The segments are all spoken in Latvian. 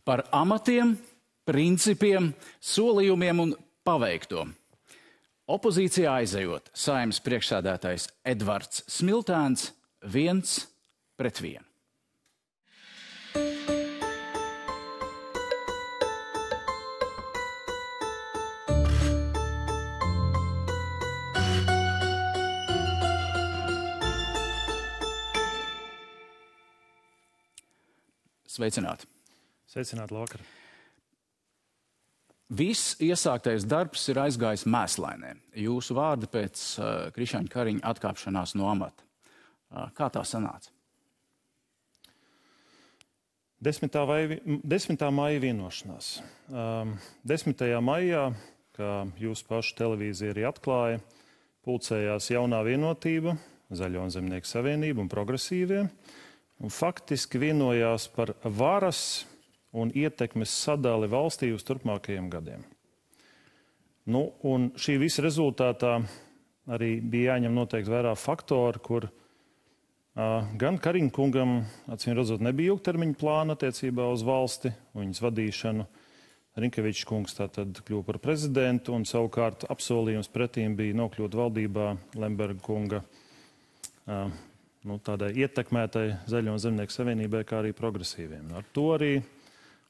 Par amatiem, principiem, solījumiem un paveikto. Opozīcijā aizejot, Saeimas priekšsēdētājs Edvards Smiltēns 1-1. Sveicināti! Sveicināti, labvakar! Viss iesāktais darbs ir aizgājis mēslainē. Jūsu vārdi pēc Krišjāņa Kariņa atkāpšanās no amata. Kā tā sanāca? 10. maija vienošanās. 10. maijā, kā jūsu pašu televīzija arī atklāja, pulcējās Jaunā Vienotība, Zaļo un Zemnieku savienība un progresīvie, un faktiski vienojās par varas un ietekmes sadali valstī uz turpmākajiem gadiem. Un šī visa rezultātā arī bija jāņem noteikti vērā faktori, kur gan Kariņa kungam, acīm redzot, nebija ilgtermiņa plāna attiecībā uz valsti un viņas vadīšanu. Rinkevičs kungs tātad kļuva par prezidentu, un savukārt apsolījums pretīm bija nokļūt valdībā Lemberga kunga tādai ietekmētai Zaļo un Zemnieku savienībai, kā arī progresīviem. Ar to arī,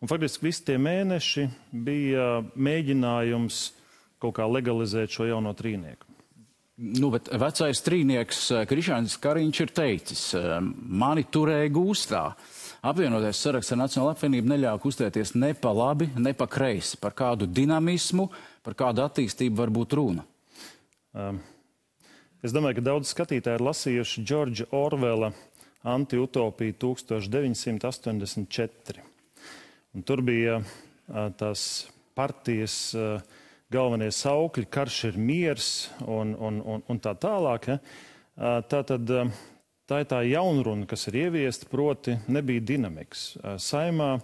un faktiski visi tie mēneši bija mēģinājums kaut kā legalizēt šo jauno trīnieku. Bet vecais trīnieks Krišjāņs Kariņš ir teicis, mani turēja gūstā. Apvienotais saraksts ar Nacionālo apvienību neļāva kustēties ne pa labi, ne pa kreisi. Par kādu dinamismu, par kādu attīstību var būt runa? Es domāju, ka daudz skatītāji ir lasījuši Džordža Orvela Antiutopiju 1984. Un tur bija tās partijas galvenie saukļi, karš ir miers un tā tālāk. Ja? Tā ir tā jaunruna, kas ir ieviesta, proti nebija dinamikas. Saimā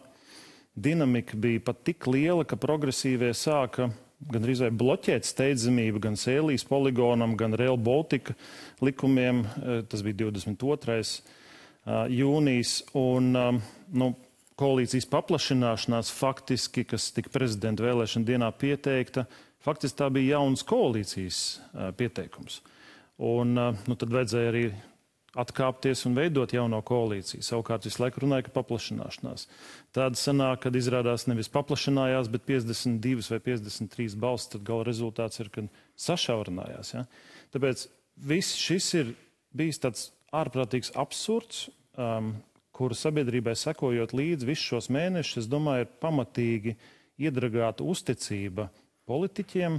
dinamika bija pat tik liela, ka progresīvie sāka gandrīz vai bloķēt steidzamību gan Sēlijas poligonam, gan Rail Baltica likumiem. Tas bija 22. jūnijas. Un koalīcijas paplašināšanās faktiski, kas tika prezidenta vēlēšana dienā pieteikta, faktiski tā bija jaunas koalīcijas pieteikums. Un tad vajadzēja arī atkāpties un veidot jauno koalīciju. Savukārt visu laiku runāja, ka paplašināšanās. Tāda sanāk, kad izrādās nevis paplašinājās, bet 52 vai 53 balsis, tad gala rezultāts ir, kad sašaurinājās. Ja? Tāpēc viss šis ir bijis tāds ārprātīgs absurds, kuru sabiedrībai sekojot līdz visus šos mēnešus, es domāju, ir pamatīgi iedragāta uzticība politiķiem,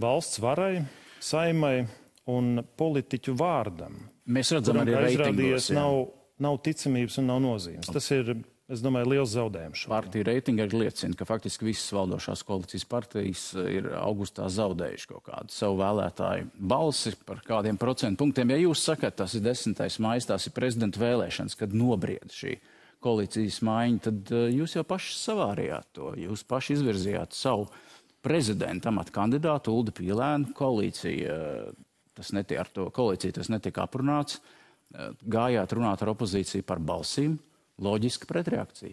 valsts varai, saimai un politiķu vārdam. Mēs redzam arī reitingos. Nav ticamības un nav nozīmes. Tas ir, es domāju, liels zaudējums. Partiju reitingi arī liecina, ka faktiski visas valdošās koalīcijas partijas ir augustā zaudējuši kaut kādu savu vēlētāju balsi par kādiem procentu punktiem. Ja jūs sakat, tas ir 10. maijs, tās ir prezidenta vēlēšanas, kad nobried šī koalīcijas maiņa, tad jūs jau paši savārījāt to. Jūs paši izvirzījāt savu prezidenta amata kandidātu Uldi Pīlēnu. Ar to koalīciju tas netika aprunāts. Gājāt runāt ar opozīciju par balsīm. Loģiska pretreakcija.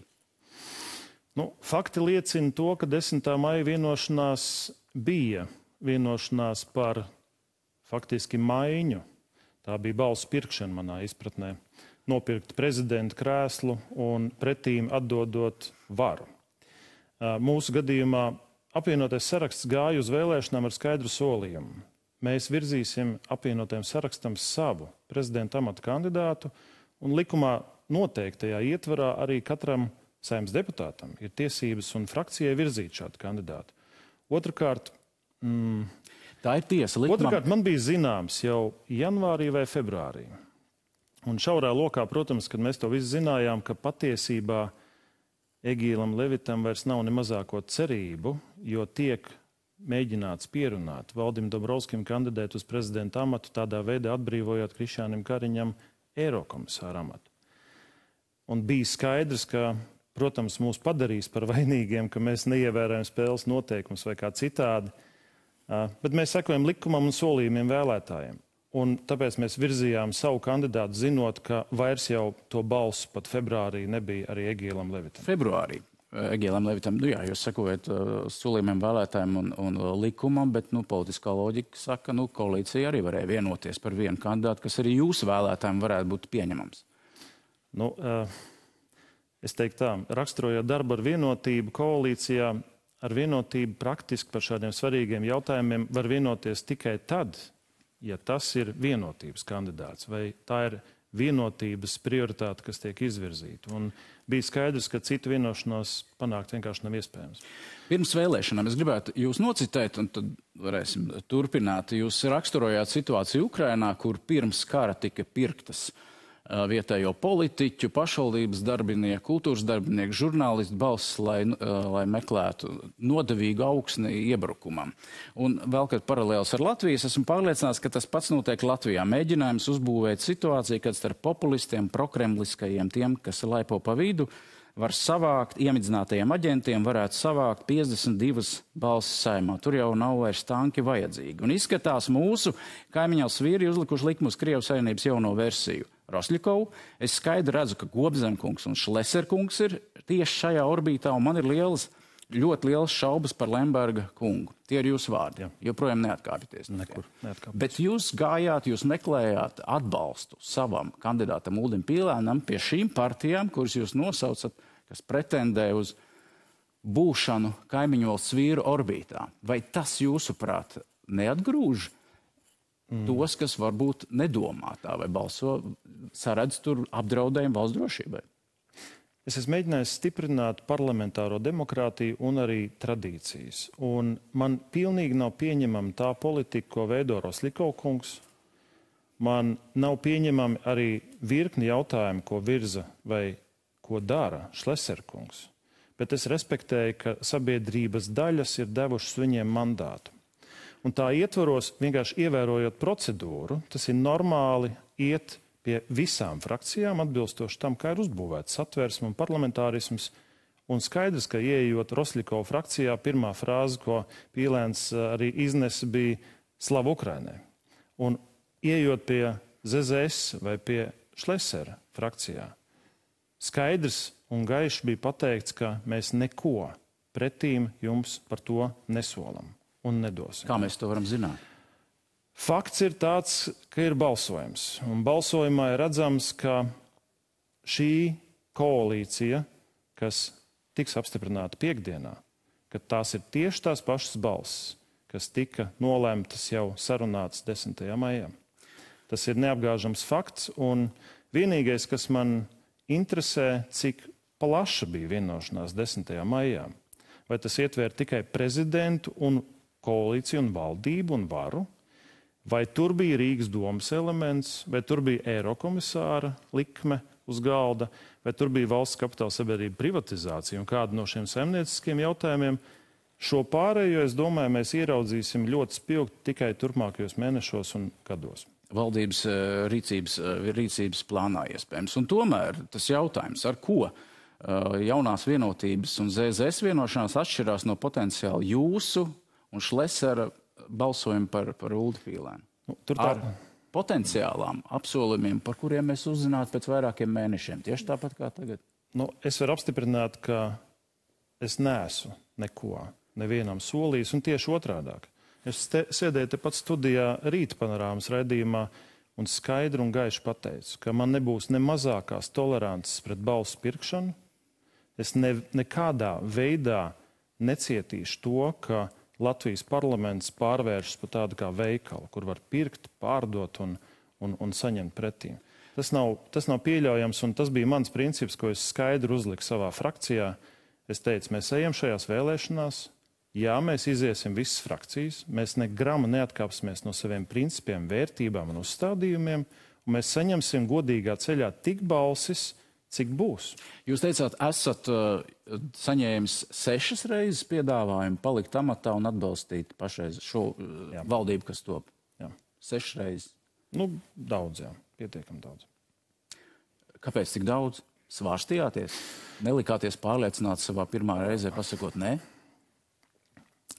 Fakti liecina to, ka 10. maija vienošanās bija vienošanās par faktiski maiņu. Tā bija balsu pirkšana manā izpratnē. Nopirkt prezidenta krēslu un pretīm atdodot varu. Mūsu gadījumā apvienotais saraksts gāja uz vēlēšanām ar skaidru solījumu. Mēs virzīsim apvienotajam sarakstam savu prezidenta amata kandidātu, un likumā noteiktajā ietvarā arī katram Saeimas deputātam ir tiesības un frakcijai virzīt šādu kandidātu. Otrakārt, tā ir tiesa. Otrakārt, man bija zināms jau janvārī vai februārī. Un šaurā lokā, protams, kad mēs to visu zinājām, ka patiesībā Egīlam Levitam vairs nav ne mazāko cerību, jo tiek mēģināts pierunāt Valdim Dombrovskim kandidēt uz prezidenta amatu, tādā veidā atbrīvojot Krišjānim Kariņam eirokomisāra amatu. Un bija skaidrs, ka, protams, mūs padarīs par vainīgiem, ka mēs neievērojam spēles noteikumus vai kā citādi, bet mēs sekojam likumam un solījumiem vēlētājiem. Un tāpēc mēs virzījām savu kandidātu, zinot, ka vairs jau to balsu pat februārī nebija arī Egīlam Levitam. Februārī Egīlam Levitam, jūs sakojat solījumiem vēlētājiem un likumam, bet politiskā loģika saka, koalīcija arī varēja vienoties par vienu kandidātu, kas arī jūsu vēlētājiem varētu būt pieņemams. Es teiktu tā, raksturojot darbu ar vienotību koalīcijā, ar vienotību praktiski par šādiem svarīgiem jautājumiem var vienoties tikai tad, ja tas ir vienotības kandidāts, vai tā ir vienotības prioritāte, kas tiek izvirzīta. Un bija skaidrs, ka citu vienošanos panākt vienkārši nav iespējams. Pirms vēlēšanām es gribētu jūs nocitēt, un tad varēsim turpināt. Jūs raksturojāt situāciju Ukrainā, kur pirms kara tika pirktas vietējo politiķu, pašvaldības darbinieku, kultūras darbinieku, žurnālistu balsis, lai meklētu nodevīgu augsni iebrukumam. Un vēl, kad paralēls ar Latviju, esmu pārliecināts, ka tas pats notiek Latvijā. Mēģinājums uzbūvēt situāciju, kad starp populistiem, prokremliskajiem, tiem, kas laipo pa vidu, var savākt, iemidzinātajiem aģentiem varētu savākt 52 balsis Saeimā. Tur jau nav vairs tanki vajadzīgi. Un izskatās mūsu kaimiņās vīri uzlikuši likumu uz Krievijas Savienības jauno versiju. Rosļikovu. Es skaidri redzu, ka Gobzemkungs un Šleserkungs ir tieši šajā orbītā, un man ir ļoti lielas šaubas par Lemberga kungu. Tie ir jūsu vārdi. Joprojām neatkāpjaties. Nekur neatkāpjaties. Bet jūs gājāt, jūs meklējāt atbalstu savam kandidātam Uldim Pīlēnam pie šīm partijām, kuras jūs nosaucat, kas pretendē uz būšanu kaimiņu valsts vīru orbītā. Vai tas, jūsuprāt, neatgrūž tos, kas varbūt nedomā tā vai balso, saredz tur apdraudējumu valsts drošībai? Es esmu mēģinājis stiprināt parlamentāro demokrātiju un arī tradīcijas. Un man pilnīgi nav pieņemama tā politika, ko veido Rosļikova kungs. Man nav pieņemami arī virkni jautājumu, ko virza vai ko dara Šleser kungs. Bet es respektēju, ka sabiedrības daļas ir devušas viņiem mandātu. Un tā ietvaros, vienkārši ievērojot procedūru, tas ir normāli iet pie visām frakcijām, atbilstoši tam, kā ir uzbūvēts satversme un parlamentārisms. Un skaidrs, ka ieejot Rosļikova frakcijā, pirmā frāze, ko Pīlēns arī iznesa, bija Slava Ukrainai. Un ieejot pie ZZS vai pie Šlesera frakcijā, skaidrs un gaiši bija pateikts, ka mēs neko pretīm jums par to nesolam un nedosim. Kā mēs to varam zināt? Fakts ir tāds, ka ir balsojums. Un balsojumā ir redzams, ka šī koalīcija, kas tiks apstiprināta piekdienā, ka tās ir tieši tās pašas balsis, kas tika nolēmtas jau sarunātas 10. maijā. Tas ir neapgāžams fakts, un vienīgais, kas man interesē, cik plaša bija vienošanās 10. maijā. Vai tas ietver tikai prezidentu un koalīciju un valdību un varu, vai tur bija Rīgas domas elements, vai tur bija eirokomisāra likme uz galda, vai tur bija valsts kapitāla sabiedrība privatizācija un kāda no šiem saimnieciskiem jautājumiem. Šo pārējo, es domāju, mēs ieraudzīsim ļoti spilgti tikai turpmākajos mēnešos un gados. Valdības rīcības plānā iespējams. Un tomēr tas jautājums, ar ko jaunās vienotības un ZZS vienošanās atšķirās no potenciāli jūsu un Šlesera balsojumu par Uldi Pīlēnu. Ar potenciālām apsolījumiem, par kuriem mēs uzzinātu pēc vairākiem mēnešiem. Tieši tāpat kā tagad. Es varu apstiprināt, ka es neesmu neko nevienam solījis, un tieši otrādāk. Es sēdēju tepat studijā Rīta panorāmas raidījumā un skaidri un gaiši pateicu, ka man nebūs ne mazākās tolerances pret balsu pirkšanu. Es nekādā veidā necietīšu to, ka Latvijas parlaments pārvēršas par tādu kā veikalu, kur var pirkt, pārdot un saņemt pretīm. Tas nav pieļaujams, un tas bija mans princips, ko es skaidri uzliku savā frakcijā. Es teicu, mēs ejam šajās vēlēšanās, jā, mēs iziesim visas frakcijas, mēs ne grama neatkāpsimies no saviem principiem, vērtībām un uzstādījumiem, un mēs saņemsim godīgā ceļā tik balsis, cik būs. Jūs teicāt, esat saņēmis 6 reizes piedāvājumu palikt amatā un atbalstīt pašreiz šo valdību, kas top. Jā. 6 reizes. Daudz, jā. Pietiekami daudz. Kāpēc tik daudz? Svārstījāties? Nelikāties pārliecināts savā pirmā reizē pasakot nē?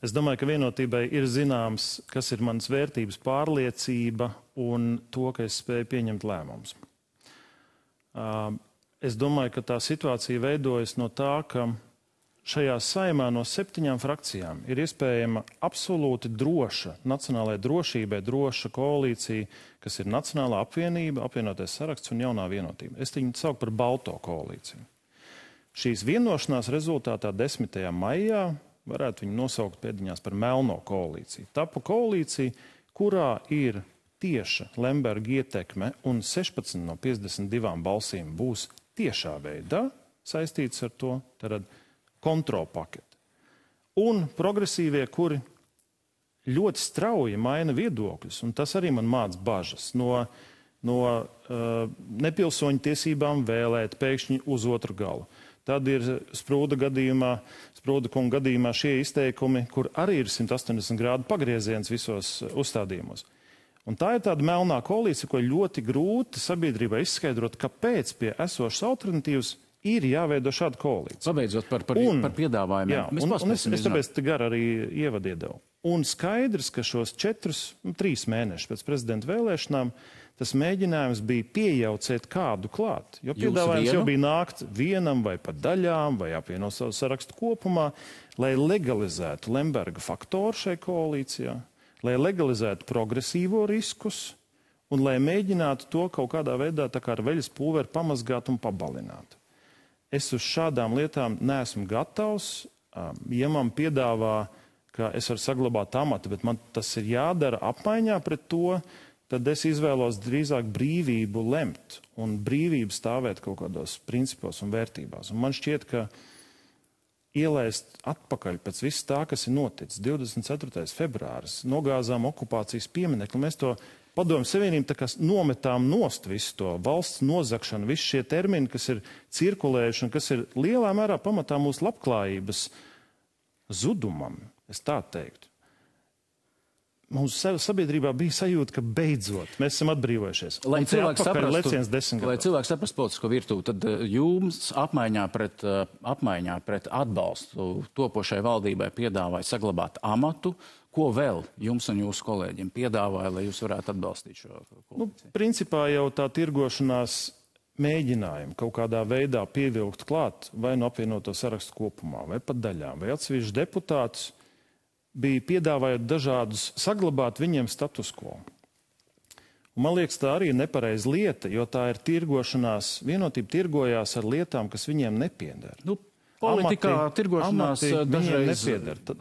Es domāju, ka vienotībai ir zināms, kas ir manas vērtības, pārliecība un to, ka es spēju pieņemt lēmumus. Es domāju, ka tā situācija veidojas no tā, ka šajā saimā no 7 frakcijām ir iespējama absolūti droša, nacionālajai drošībai droša koalīcija, kas ir Nacionālā apvienība, apvienotais saraksts un jaunā vienotība. Es viņu saucu par balto koalīciju. Šīs vienošanās rezultātā 10. maijā varētu viņu nosaukt pēdiņās par melno koalīciju. Tapa koalīcija, kurā ir tieša Lemberga ietekme un 16 no 52 balsīm būs tiešā veidā saistīts ar to, tad kontrolpaketi. Un progresīvie, kuri ļoti strauji maina viedokļus, un tas arī man māca bažas no nepilsoņu tiesībām vēlēt pēkšņi uz otru galu. Tad ir Sprūda kunga gadījumā šie izteikumi, kur arī ir 180 grādu pagrieziens visos uzstādījumos. Un tā ir tāda melnā koalīcija, ko ļoti grūti sabiedrībai izskaidrot, kāpēc pie esošas alternatīvas ir jāveido šāda koalīcija. Pabeidzot par piedāvājumiem. Jā, es tāpēc te gar arī ievadu iedevu. Un skaidrs, ka šos 3 mēnešus pēc prezidenta vēlēšanām tas mēģinājums bija piejaucēt kādu klāt. Jo piedāvājums jau bija nākt vienam vai pat daļām vai apvienot savu sarakstu kopumā, lai legalizētu Lemberga faktoru šai koalīcijā, lai legalizētu progresīvo riskus un lai mēģinātu to kaut kādā veidā tā kā ar veļas pulveri pamazgāt un pabalināt. Es uz šādām lietām neesmu gatavs. Ja man piedāvā, ka es varu saglabāt amatu, bet man tas ir jādara apmaiņā pret to, tad es izvēlos drīzāk brīvību lemt un brīvību stāvēt kaut kādos principos un vērtībās. Un man šķiet, ka ielaist atpakaļ pēc viss tā, kas ir noticis 24. februāris, nogāzām okupācijas pieminekli, mēs to Padomju Savienību tā kā nometām nost visu to valsts nozagšanu, visi šie termini, kas ir cirkulējuši un kas ir lielā mērā pamatā mūsu labklājības zudumam, es tā teiktu. Mūsu sabiedrībā bija sajūta, ka beidzot mēs esam atbrīvojušies. Lai cilvēks saprastu politisko virtuvi, tad jums apmaiņā pret atbalstu topošai valdībai piedāvāja saglabāt amatu. Ko vēl jums un jūsu kolēģiem piedāvāja, lai jūs varētu atbalstīt šo koalīciju? Principā jau tā tirgošanās mēģinājumi kaut kādā veidā pievilkt klāt vai no apvienoto sarakstu kopumā, vai pat daļām, vai atsevišķi deputātus, bija piedāvājot dažādus saglabāt viņiem status quo. Un man liekas, tā arī ir nepareiza lieta, jo tā ir tirgošanās, vienotība tirgojās ar lietām, kas viņiem nepieder. Politikā tirgošanās dažreiz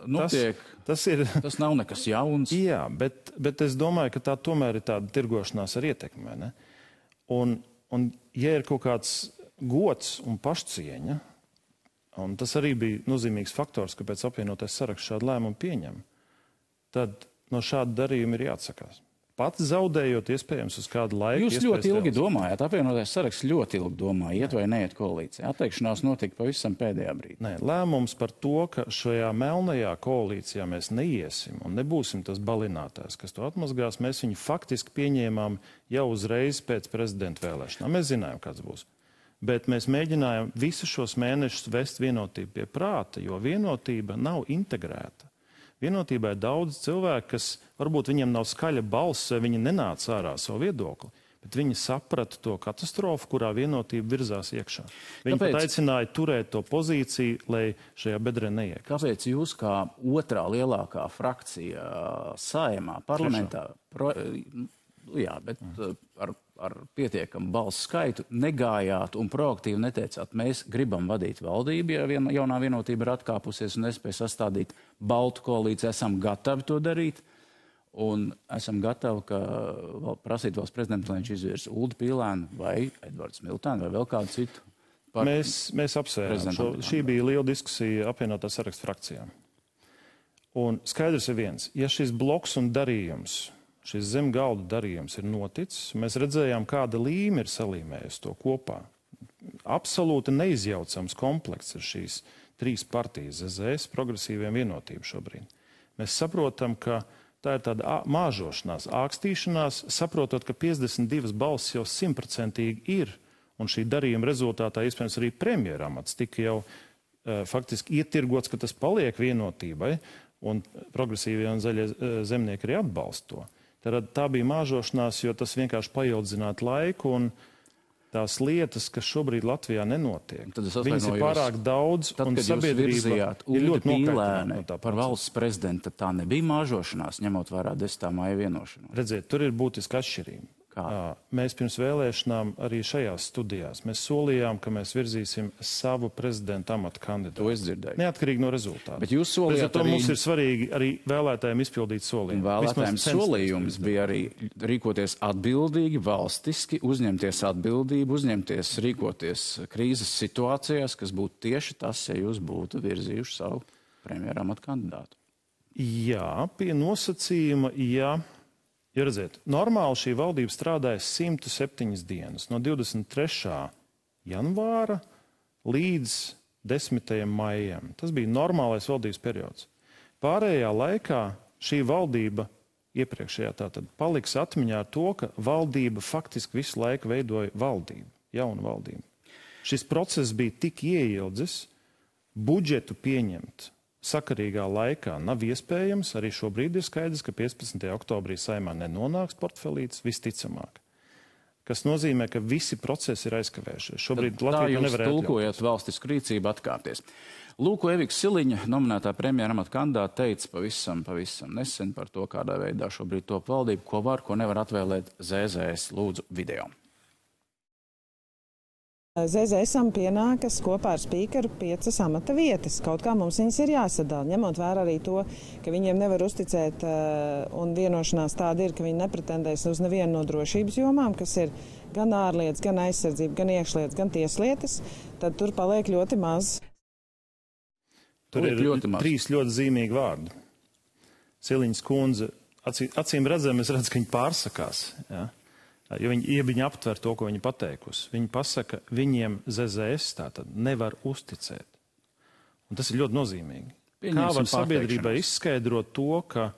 notiek. Tas nav nekas jauns. Jā, bet es domāju, ka tā tomēr ir tāda tirgošanās ar ietekmi. Ne? Un ja ir kaut kāds gods un pašcieņa, un tas arī bija nozīmīgs faktors, kāpēc apvienotais saraksts šādu lēmumu pieņem, tad no šāda darījuma ir jāatsakās. Pats zaudējot iespējams uz kādu laiku. Jūs ļoti ilgi domājat, apvienotais saraksts ļoti ilgi domāja, iet vai neiet koalīcijā. Atteikšanās notika pavisam pēdējā brīdī. Nē, lēmums par to, ka šajā melnajā koalīcijā mēs neiesim un nebūsim tas balinātājs, kas to atmazgās, mēs viņu faktiski pieņēmām jau uzreiz pēc prezidenta vēlēšanām. Mēs zinājām, kāds būs. Bet mēs mēģinājām visus šos mēnešus vest vienotību pie prāta, jo vienotība nav integrēta. Vienotībā ir daudz cilvēku, kas varbūt viņiem nav skaļa balss, viņi nenāca ārā savu viedokli, bet viņi saprata to katastrofu, kurā vienotība virzās iekšā. Viņi pat aicināja turēt to pozīciju, lai šajā bedrē neiekļūst. Kāpēc jūs kā otrā lielākā frakcija Saeimā, parlamentā, ar pietiekamu balsu skaitu negājāt un proaktīvi neteicāt, mēs gribam vadīt valdību, ja jaunā vienotība ir atkāpusies un nespēja sastādīt baltu koalīciju, esam gatavi to darīt un esam gatavi prasīt valsts prezidentu, lai viņš izvirs Uldi Pīlēnu vai Edvards Miltēnu vai vēl kādu citu. Mēs apsvērām. Šī bija liela diskusija apvienotā sarakstu frakcijām. Un skaidrs ir viens, ja šis bloks un darījums, šis zem galda darījums ir noticis, mēs redzējām, kāda līme ir salīmējusi to kopā. Absolūti neizjaucams komplekts ir šīs 3 partijas, ZZS, progresīviem vienotību šobrīd. Mēs saprotam, ka tā ir tāda māžošanās, ākstīšanās, saprotot, ka 52 balsis jau 100% ir, un šī darījuma rezultātā iespējams arī premjeramats tika jau faktiski ietirgots, ka tas paliek vienotībai, un progresīvie un zaļie zemnieki arī atbalsta to. Tad tā bija māžošanās, jo tas vienkārši paildzinātu laiku un tās lietas, kas šobrīd Latvijā nenotiek. Viņas ir pārāk daudz, un sabiedrība ir ļoti nokaitināta no tā. Par valsts prezidenta tā nebija māžošanās, ņemot vērā 10. maija vienošanos. Redziet, tur ir būtiska atšķirība. Mēs pirms vēlēšanām arī šajās studijās mēs solījām, ka mēs virzīsim savu prezidenta amata kandidātu. To es dzirdēju. Neatkarīgi no rezultātu. Bet jūs solījāt arī... Mums ir svarīgi arī vēlētājiem izpildīt solījumu. Vēlētājiem solījums bija arī rīkoties atbildīgi, valstiski, uzņemties atbildību, rīkoties krīzes situācijās, kas būtu tieši tas, ja jūs būtu virzījuši savu premjera amata kandidātu. Jā, pie nosacījuma, jā. Ja redziet, normāli šī valdība strādāja 107 dienas, no 23. janvāra līdz 10. maijam. Tas bija normālais valdības periods. Pārējā laikā šī valdība, iepriekšējā tātad, paliks atmiņā ar to, ka valdība faktiski visu laiku veidoja valdību, jaunu valdību. Šis process bija tik ieildzis, budžetu pieņemt sakarīgā laikā nav iespējams. Arī šobrīd ir skaidrs, ka 15. oktobrī Saeimā nenonāks portfelītis visticamāk. Kas nozīmē, ka visi procesi ir aizkavējušies. Šobrīd Latvija nevar atļauties. Tulkojot valstisku rīcību atkāpties. Lūk, Evika Siliņa, nominētā premjera amata kandidāte, teica pavisam nesen par to, kādā veidā šobrīd top valdību, ko var, ko nevar atvēlēt ZZS. Lūdzu video. ZZS-am pienākas kopā ar spīkeru 5 amata vietas. Kaut kā mums viņas ir jāsadala, ņemot vērā arī to, ka viņiem nevar uzticēt, un vienošanās tāda ir, ka viņi nepretendēs uz nevienu no drošības jomām, kas ir gan ārlietas, gan aizsardzība, gan iekšlietas, gan tieslietas, tad tur paliek ļoti maz. Tur ir 3 ļoti zīmīgi vārdi. Siliņas kundze, acīm redzam, es redzu, ka viņi pārsakās, ja? Jo viņi aptver to, ko viņi pateikusi. Viņi pasaka, viņiem ZZS tātad nevar uzticēt. Un tas ir ļoti nozīmīgi. Kā var sabiedrībai izskaidrot to, ka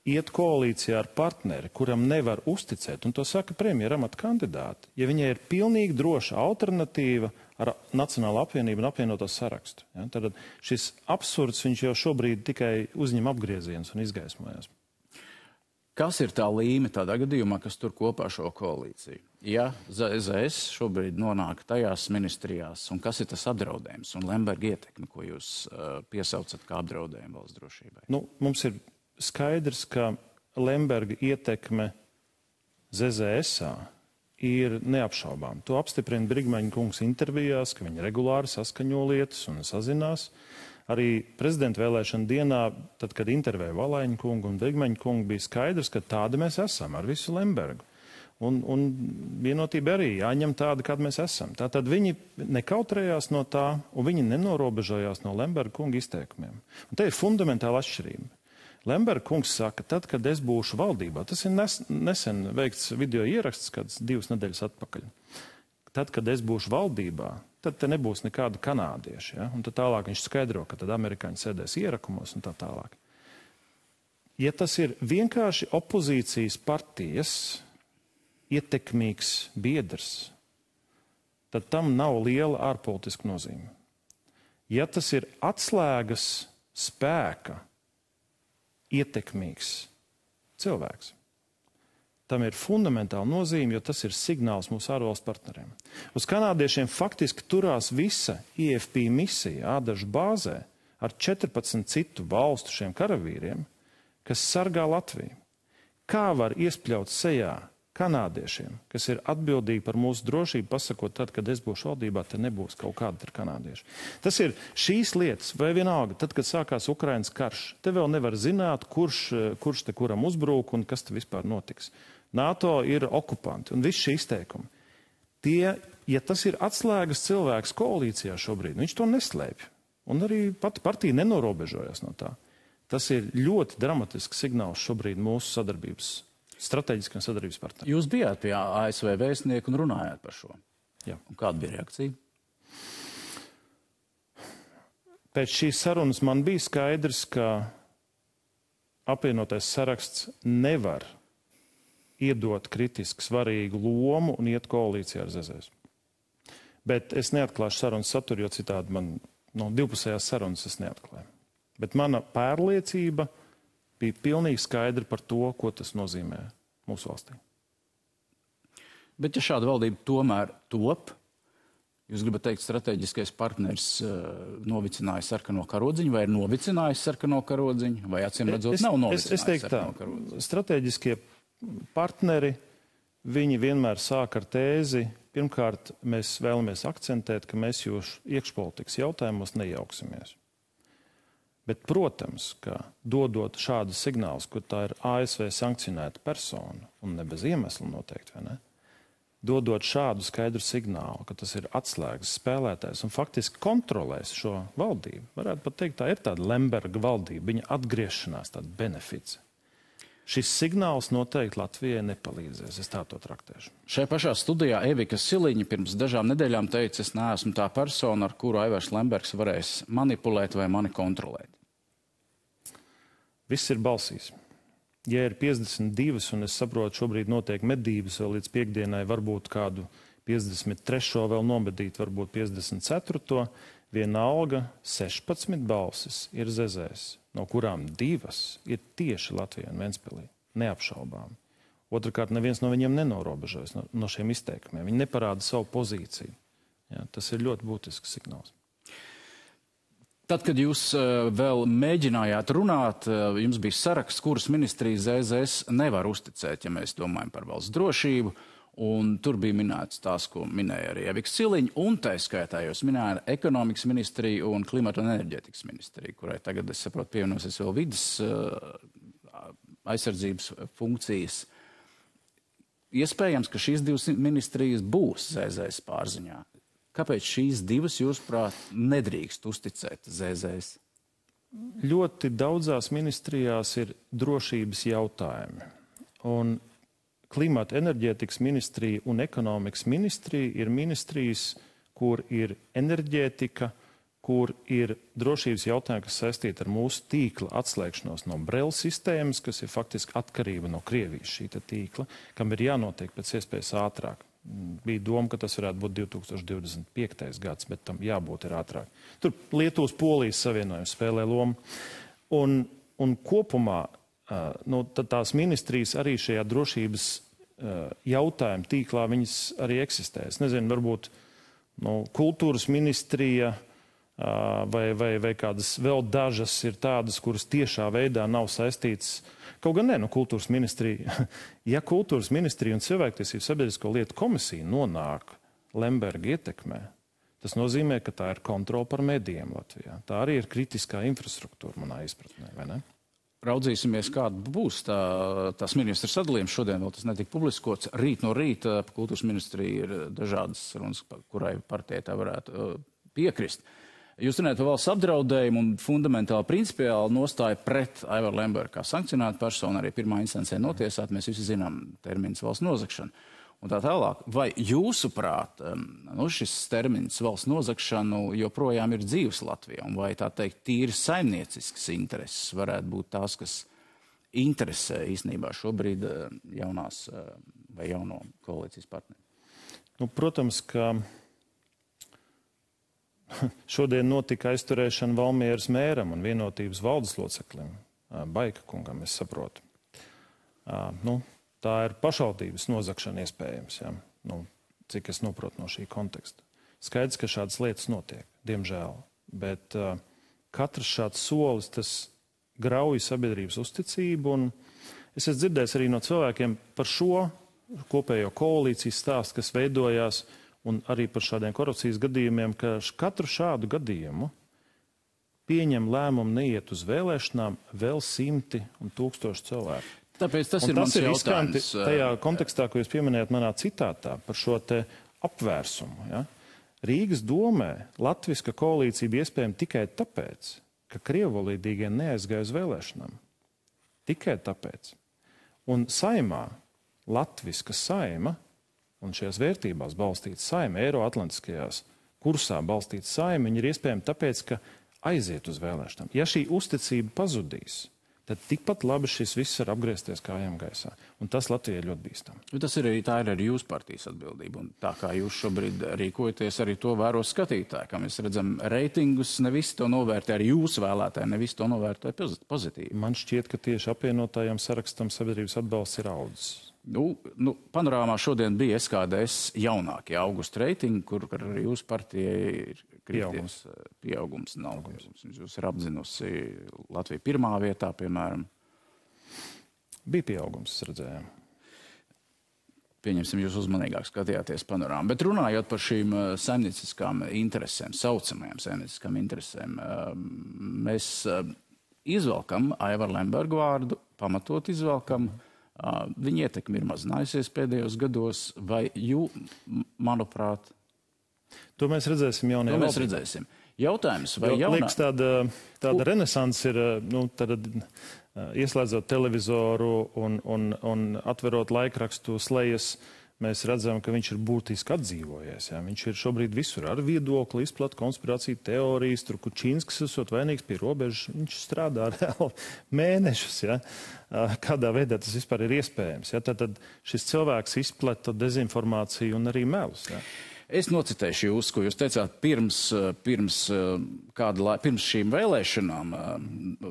iet koalīcijā ar partneri, kuram nevar uzticēt, un to saka premjera amata kandidāti, ja viņai ir pilnīgi droša alternatīva ar Nacionālo apvienību un apvienoto sarakstu. Ja? Tad šis absurds viņš jau šobrīd tikai uzņem apgriezienus un izgaismojas. Kas ir tā līme tādā gadījumā, kas tur kopā šo koalīciju? Ja ZZS šobrīd nonāk tajās ministrijās, un kas ir tas apdraudējums un Lemberga ietekme, ko jūs piesaucat kā apdraudējumu valsts drošībai? Mums ir skaidrs, ka Lemberga ietekme ZZS-ā ir neapšaubām. To apstiprina Brigmaņa kungs intervijās, ka viņi regulāri saskaņo lietas un sazinās. Arī prezidenta vēlēšana dienā, tad, kad intervēja Valaiņa kungu un Brigmaņa kungu, bija skaidrs, ka tādi mēs esam ar visu Lembergu. Un vienotība arī jāņem tāda, kāda mēs esam. Tātad viņi nekautrējās no tā, un viņi nenorobežojās no Lemberga kunga izteikumiem. Un te ir fundamentāla atšķirība. Lemberga kungs saka, tad, kad es būšu valdībā, tas ir nesen veikts video ieraksts, kāds 2 nedēļas atpakaļ. Tad, kad es būšu valdībā, tad te nebūs nekāda kanādieša. Ja? Un tad tālāk viņš skaidro, ka tad amerikāņi sēdēs ierakumos un tā tālāk. Ja tas ir vienkārši opozīcijas partijas ietekmīgs biedrs, tad tam nav liela ārpolitiska nozīme. Ja tas ir atslēgas spēka ietekmīgs cilvēks, tam ir fundamentāla nozīme, jo tas ir signāls mūsu ārvalstu partneriem. Uz kanādiešiem faktiski turās visa IFP misija Ādažu bāzē ar 14 citu valstu šiem karavīriem, kas sargā Latviju. Kā var iespļaut sejā kanādiešiem, kas ir atbildīgi par mūsu drošību, pasakot tad, kad es būšu valdībā, te nebūs kaut kāda ar kanādieši. Tas ir šīs lietas, vai vienalga, tad, kad sākās Ukrainas karš, te vēl nevar zināt, kurš te kuram uzbrūk un kas te vispār notiks. NATO ir okupanti un visi šie izteikumi. Ja tas ir atslēgas cilvēks koalīcijā šobrīd, viņš to neslēpj. Un arī pati partija nenorobežojas no tā. Tas ir ļoti dramatisks signāls šobrīd mūsu sadarbības, strateģiskiem sadarbības partneriem. Jūs bijāt pie ASV vēstnieku un runājāt par šo. Jā. Un kāda bija reakcija? Pēc šīs sarunas man bija skaidrs, ka apvienotais saraksts nevar iedot kritiski svarīgu lomu un iet koalīcijā ar ZZS. Bet es neatklāšu sarunas saturu, jo citādi man divpusējās sarunas es neatklāju. Bet mana pārliecība bija pilnīgi skaidra par to, ko tas nozīmē mūsu valstī. Bet ja šāda valdība tomēr top, jūs gribat teikt, strateģiskais partners novicināja sarkano karodziņu, vai ir novicinājis sarkano karodziņu, vai acīm redzot nav novicinājis sarkano karodziņu? Strateģiskie partneri, viņi vienmēr sāk ar tēzi. Pirmkārt, mēs vēlamies akcentēt, ka mēs jūsu iekšpolitikas jautājumos nejauksimies. Bet, protams, ka dodot šādus signālus, ka tā ir ASV sankcionēta persona, un ne bez iemesla noteikti, vai ne? Dodot šādu skaidru signālu, ka tas ir atslēgas spēlētājs un faktiski kontrolēs šo valdību. Varētu pat teikt, tā ir tāda Lemberga valdība, viņa atgriešanās, tāda benefits. Šis signāls noteikti Latvijai nepalīdzēs, es tā to traktēšu. Šai pašā studijā Evika Siliņa pirms dažām nedēļām teica, es neesmu tā persona, ar kuru Aivars Lembergs varēs manipulēt vai mani kontrolēt. Viss ir balsīs. Ja ir 52, un es saprotu, šobrīd notiek medības vēl līdz piekdienai, varbūt kādu 53. vēl nomedīt, varbūt 54. Vienalga 16 balsis ir zezēs, no kurām 2 ir tieši Latvijā un Ventspilī. Neapšaubām. Otrakārt, neviens no viņiem nenorobežojas no šiem izteikumiem. Viņi neparāda savu pozīciju. Ja, tas ir ļoti būtisks signāls. Tad, kad jūs vēl mēģinājāt runāt, jums bija saraksts, kuras ministrijas ZZS nevar uzticēt, ja mēs domājam par valsts drošību, un tur bija minēts tās, ko minēja arī Evika Siliņa, un tā skaitā jūs minēja ekonomikas ministriju un klimata un enerģētikas ministriju, kurai tagad, es saprotu, pievienosies vēl vidas aizsardzības funkcijas. Iespējams, ka šīs 2 ministrijas būs ZZS pārziņā. Kāpēc šīs 2, jūsuprāt, nedrīkst uzticēt ZZS? Ļoti daudzās ministrijās ir drošības jautājumi. Un klimata enerģētikas ministrija un ekonomikas ministrija ir ministrijas, kur ir enerģētika, kur ir drošības jautājumi, kas saistīti ar mūsu tīkla atslēgšanos no Brela sistēmas, kas ir faktiski atkarība no Krievijas šī tīkla, kam ir jānotiek pēc iespējas ātrāk. Bija doma, ka tas varētu būt 2025. gads, bet tam jābūt ir ātrāk. Tur Lietuvas Polijas savienojums spēlē lomu. Un kopumā tās ministrijas arī šajā drošības jautājuma tīklā viņas arī eksistē. Es nezinu, varbūt kultūras ministrija vai kādas vēl dažas ir tādas, kuras tiešā veidā nav saistītas. Kaut gan kultūras ministrija. Ja kultūras ministrija un cilvēktiesību sabiedrisko lietu komisija nonāk Lemberga ietekmē, tas nozīmē, ka tā ir kontrola par medijiem Latvijā. Tā arī ir kritiskā infrastruktūra manā izpratnē, vai ne? Raudzīsimies, kāda būs tās ministra sadalījums. Šodien vēl tas netika publiskots. Rīt no rīta kultūras ministrija ir dažādas runas, kurai partijai tā varētu piekrist. Jūs runājat par valsts apdraudējumu un fundamentāli principiāli nostāja pret Aivaru Lembergu kā sankcionētu personu, arī pirmā instancē notiesāt, mēs visi zinām termins valsts nozagšana. Un tā tālāk, vai jūsuprāt, šis termins valsts nozagšanu joprojām ir dzīves Latvijā, un vai tā teikt tīri saimniecisks intereses varētu būt tās, kas interesē īstenībā šobrīd jaunās vai jauno koalīcijas partneri? Protams, ka šodien notika aizturēšana Valmieras mēram un vienotības valdes loceklim, Baika kungam, es saprotu. Tā ir pašvaldības nozagšana iespējams, ja? Cik es noprotu no šī konteksta. Skaidrs, ka šādas lietas notiek, diemžēl, bet katrs šāds solis, tas grauj sabiedrības uzticību, un es esmu dzirdējis arī no cilvēkiem par šo kopējo koalīcijas stāstu, kas veidojās, un arī par šādiem korupcijas gadījumiem, ka katru šādu gadījumu pieņem lēmumu neiet uz vēlēšanām vēl 100 un 1000 cilvēku. Tāpēc tas ir mans jautājums. Tajā kontekstā, ko jūs pieminējat manā citātā par šo te apvērsumu. Ja? Rīgas domē latviska koalīcija bija iespējama tikai tāpēc, ka krievvalodīgie neaizgāja uz vēlēšanām. Tikai tāpēc. Un saimā, latviska saima, un šajās vērtībās balstīta saima, eiroatlantiskajās kursā balstīta saima, viņi ir iespējami tāpēc, ka aiziet uz vēlēšanām. Ja šī uzticība pazudīs, tad tikpat labi šis viss var apgriezties kājām gaisā. Un tas Latvijai ļoti bīstam. Tā ir arī jūsu partijas atbildība. Un tā kā jūs šobrīd rīkojaties, arī to vēro skatītāji. Kā mēs redzam, reitingus ne visi to novērtē, arī jūsu vēlētāji ne visi to novērtē pozitīvi. Man šķiet, ka tieši apvienotājiem sarakstam sabiedrības atbalsts ir audzis. Panorāmā šodien bija SKDS jaunākie augusta reitingi, kur arī jūsu partijai ir krities pieaugums. Jūs ir apzinusi Latviju pirmā vietā, piemēram. Bija pieaugums, redzējām. Pieņemsim, jūs uzmanīgāk skatījāties panorāmu. Bet runājot par šīm saimnieciskām interesēm, saucamajām saimnieciskām interesēm, mēs izvelkam Aivaru Lembergu vārdu, pamatot izvelkam. Viņa ietekme ir mazinājusies pēdējos gados, vai manuprāt... To mēs redzēsim jaunajā valdībā. To mēs redzēsim. Jautājums, vai liekas, tāda renesans ir, ieslēdzot televizoru un atverot laikrakstu slejas, mēs redzam, ka viņš ir būtiski atdzīvojies. Ja? Viņš ir šobrīd visur ar viedokli, izplat konspirāciju teorijas, tur Kučīnskis esot vainīgs pie robežas. Viņš strādā reāli mēnešus. Ja? Kādā veidā tas vispār ir iespējams. Ja? Tad šis cilvēks izplata dezinformāciju un arī melus. Ja? Es nocitēšu jūs, ko jūs teicāt pirms šīm vēlēšanām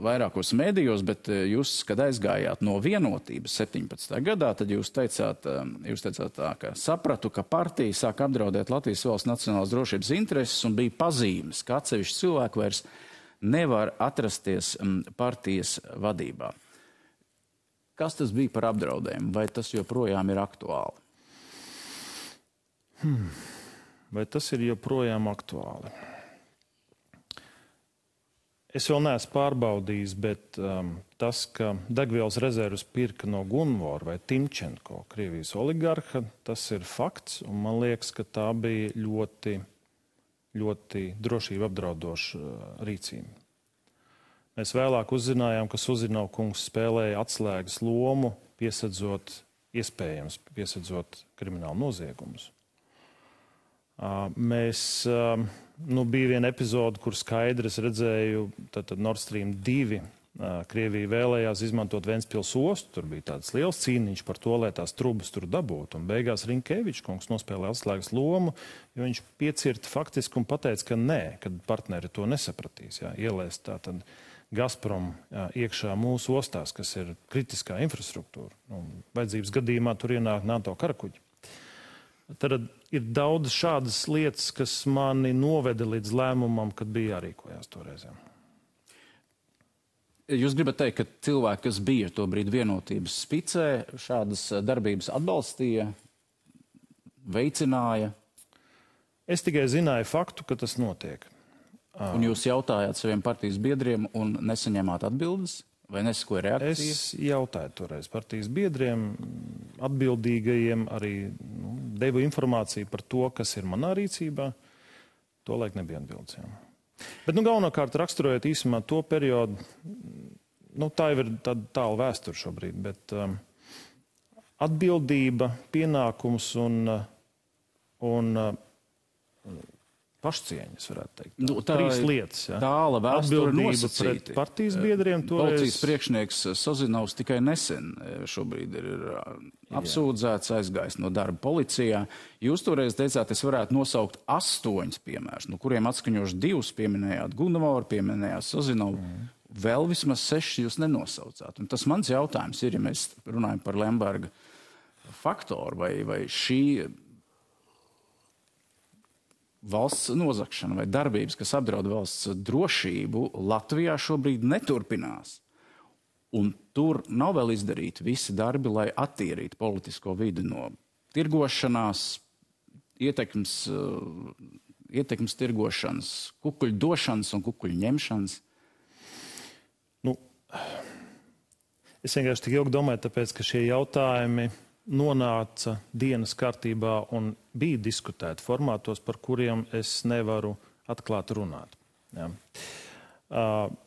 vairākos mēdījos, bet jūs, kad aizgājāt no Vienotības 17. gadā, tad jūs teicāt tā, ka sapratu, ka partija sāk apdraudēt Latvijas valsts nacionālās drošības intereses un bija pazīmes, ka atsevišķi cilvēki vairs nevar atrasties partijas vadībā. Kas tas bija par apdraudējumu? Vai tas joprojām ir aktuāli? Vai tas ir joprojām aktuāli? Es vēl neesmu pārbaudījis, bet tas, ka degvielas rezervus pirka no Gunvora vai Timčenko, Krievijas oligarha, tas ir fakts, un man liekas, ka tā bija ļoti, ļoti drošību apdraudoša rīcība. Mēs vēlāk uzzinājām, ka Suzinov kungs spēlēja atslēgas lomu, piesedzot kriminālu noziegumus. Bija viena epizode, kur skaidri es redzēju, tad Nord Stream 2 Krievija vēlējās izmantot Ventspils ostu, tur bija tāds liels cīniņš par to, lai tās trubas tur dabūtu, un beigās Rinkevičs kungs nospēlēja atslēgas lomu, jo viņš piecirta faktiski un pateica, ka nē, kad partneri to nesapratīs, ielēst tātad Gazprom iekšā mūsu ostās, kas ir kritiskā infrastruktūra. Vajadzības gadījumā tur ienāk NATO karakuģi. Tad ir daudz šādas lietas, kas mani noveda līdz lēmumam, kad bija jārīkojās toreizēm. Jūs gribat teikt, ka cilvēki, kas bija to brīdi Vienotības spicē, šādas darbības atbalstīja, veicināja? Es tikai zināju faktu, ka tas notiek. Un jūs jautājāt saviem partijas biedriem un nesaņēmāt atbildes? Vai nesakoja reakcija? Es jautāju toreiz partijas biedriem, atbildīgajiem, arī devu informāciju par to, kas ir manā rīcībā. To laik nebija atbildes. Bet galvenokārt raksturojot īsumā to periodu, tā jau ir tāla vēsture šobrīd, bet atbildība, pienākums un pašcieņas, varētu teikt. Trīs lietas. Tāla vēsture atbildība pret partijas biedriem. Policijas priekšnieks Sozinovs tikai nesen šobrīd ir apsūdzēts, aizgājis no darba policijā. Jūs toreiz teicāt, es varētu nosaukt 8 piemērus, no kuriem atskaņoši 2 pieminējāt Gunvoru, pieminējāt Sozinovu. Vēl vismaz 6 jūs nenosaucāt. Un tas mans jautājums ir, ja mēs runājam par Lemberga faktoru, vai šī valsts nozagšana vai darbības, kas apdraud valsts drošību, Latvijā šobrīd neturpinās. Un tur nav vēl izdarīti visi darbi, lai attīrītu politisko vidi no tirgošanās, ietekmes tirgošanas, kukuļu došanas un kukuļu ņemšanas. Es vienkārši tik ilgi domāju, tāpēc, ka šie jautājumi nonāca dienas kārtībā un bija diskutēti formātos, par kuriem es nevaru atklāt runāt. Ja.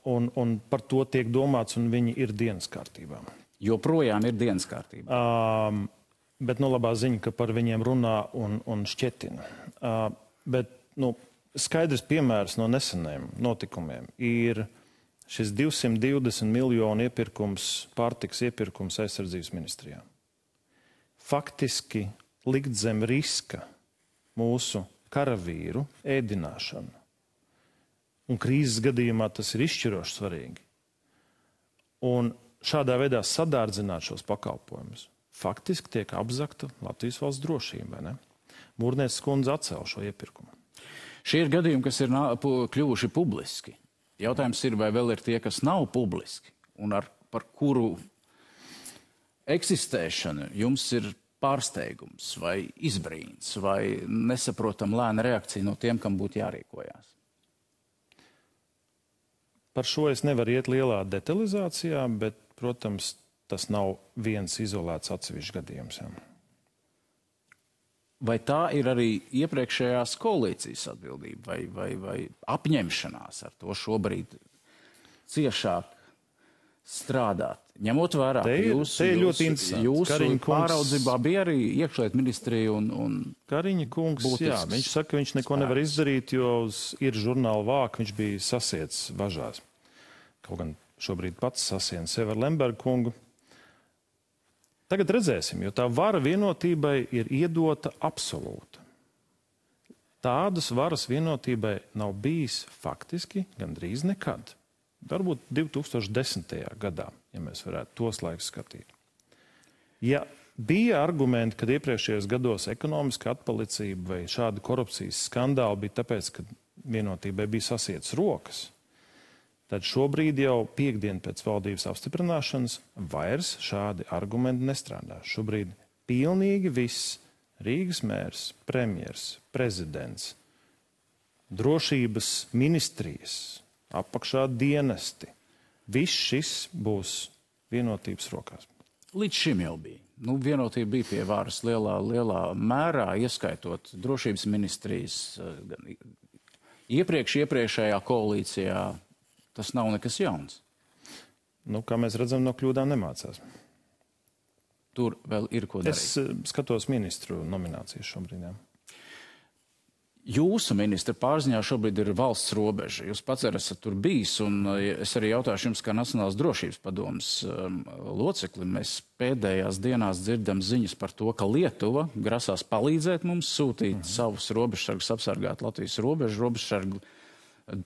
Un par to tiek domāts, un viņi ir dienas kārtībā. Joprojām ir dienas kārtībā. Bet labā ziņa, ka par viņiem runā un šķetina. Bet skaidrs piemērs no neseniem notikumiem ir šis 220 miljonu iepirkums, pārtiks iepirkums aizsardzības ministrijā. Faktiski likt zem riska mūsu karavīru ēdināšanu. Un krīzes gadījumā tas ir izšķiroši svarīgi. Un šādā veidā sadārdzināt šos pakalpojumus. Faktiski tiek apzakta Latvijas valsts drošība, vai ne? Mūrnieces kundze atcēla šo iepirkumu. Šie ir gadījumi, kas ir kļuvuši publiski. Jautājums ir, vai vēl ir tie, kas nav publiski, un par kuru eksistēšanu jums ir pārsteigums vai izbrīns vai nesaprotam lēna reakcija no tiem, kam būtu jārīkojās. Par šo es nevaru iet lielā detalizācijā, bet, protams, tas nav viens izolēts atsevišķs gadījums. Jā. Vai tā ir arī iepriekšējās koalīcijas atbildība vai apņemšanās ar to šobrīd ciešāk strādāt? Ņemot vērā, ka jūsu pāraudzībā bija arī iekšliet ministrija un Kariņa kungs, jā, viņš saka, ka viņš neko nevar izdarīt, jo ir žurnāla vāka, viņš bija sasiets važās. Kaut gan šobrīd pats sasien sevi ar Lemberga kungu. Tagad redzēsim, jo tā vara vienotībai ir iedota absolūta. Tādas varas vienotībai nav bijis faktiski gandrīz nekad. Varbūt 2010. gadā, ja mēs varētu tos laikus skatīt. Ja bija argumenti, kad iepriekšējos gados ekonomiska atpalicība vai šāda korupcijas skandāli bija tāpēc, ka vienotībai bija sasietas rokas, tad šobrīd jau piekdien pēc valdības apstiprināšanas vairs šādi argumenti nestrādā. Šobrīd pilnīgi viss Rīgas mērs, premjers, prezidents, drošības ministrijas, apakšā dienesti. Viss šis būs vienotības rokās. Līdz šim jau bija. Vienotība bija pie varas lielā mērā, ieskaitot drošības ministrijas. Iepriekšējā koalīcijā tas nav nekas jauns. Kā mēs redzam, no kļūdām nemācās. Tur vēl ir ko darīt. Es skatos ministru nominācijas šobrīd. Jā. Jūsu ministra pārziņā šobrīd ir valsts robeža. Jūs pats esat tur bijis, un es arī jautāšu jums, kā Nacionālās drošības padomes locekli. Mēs pēdējās dienās dzirdam ziņas par to, ka Lietuva grasās palīdzēt mums sūtīt savus robežsargus apsargāt Latvijas robežu. Robežsargi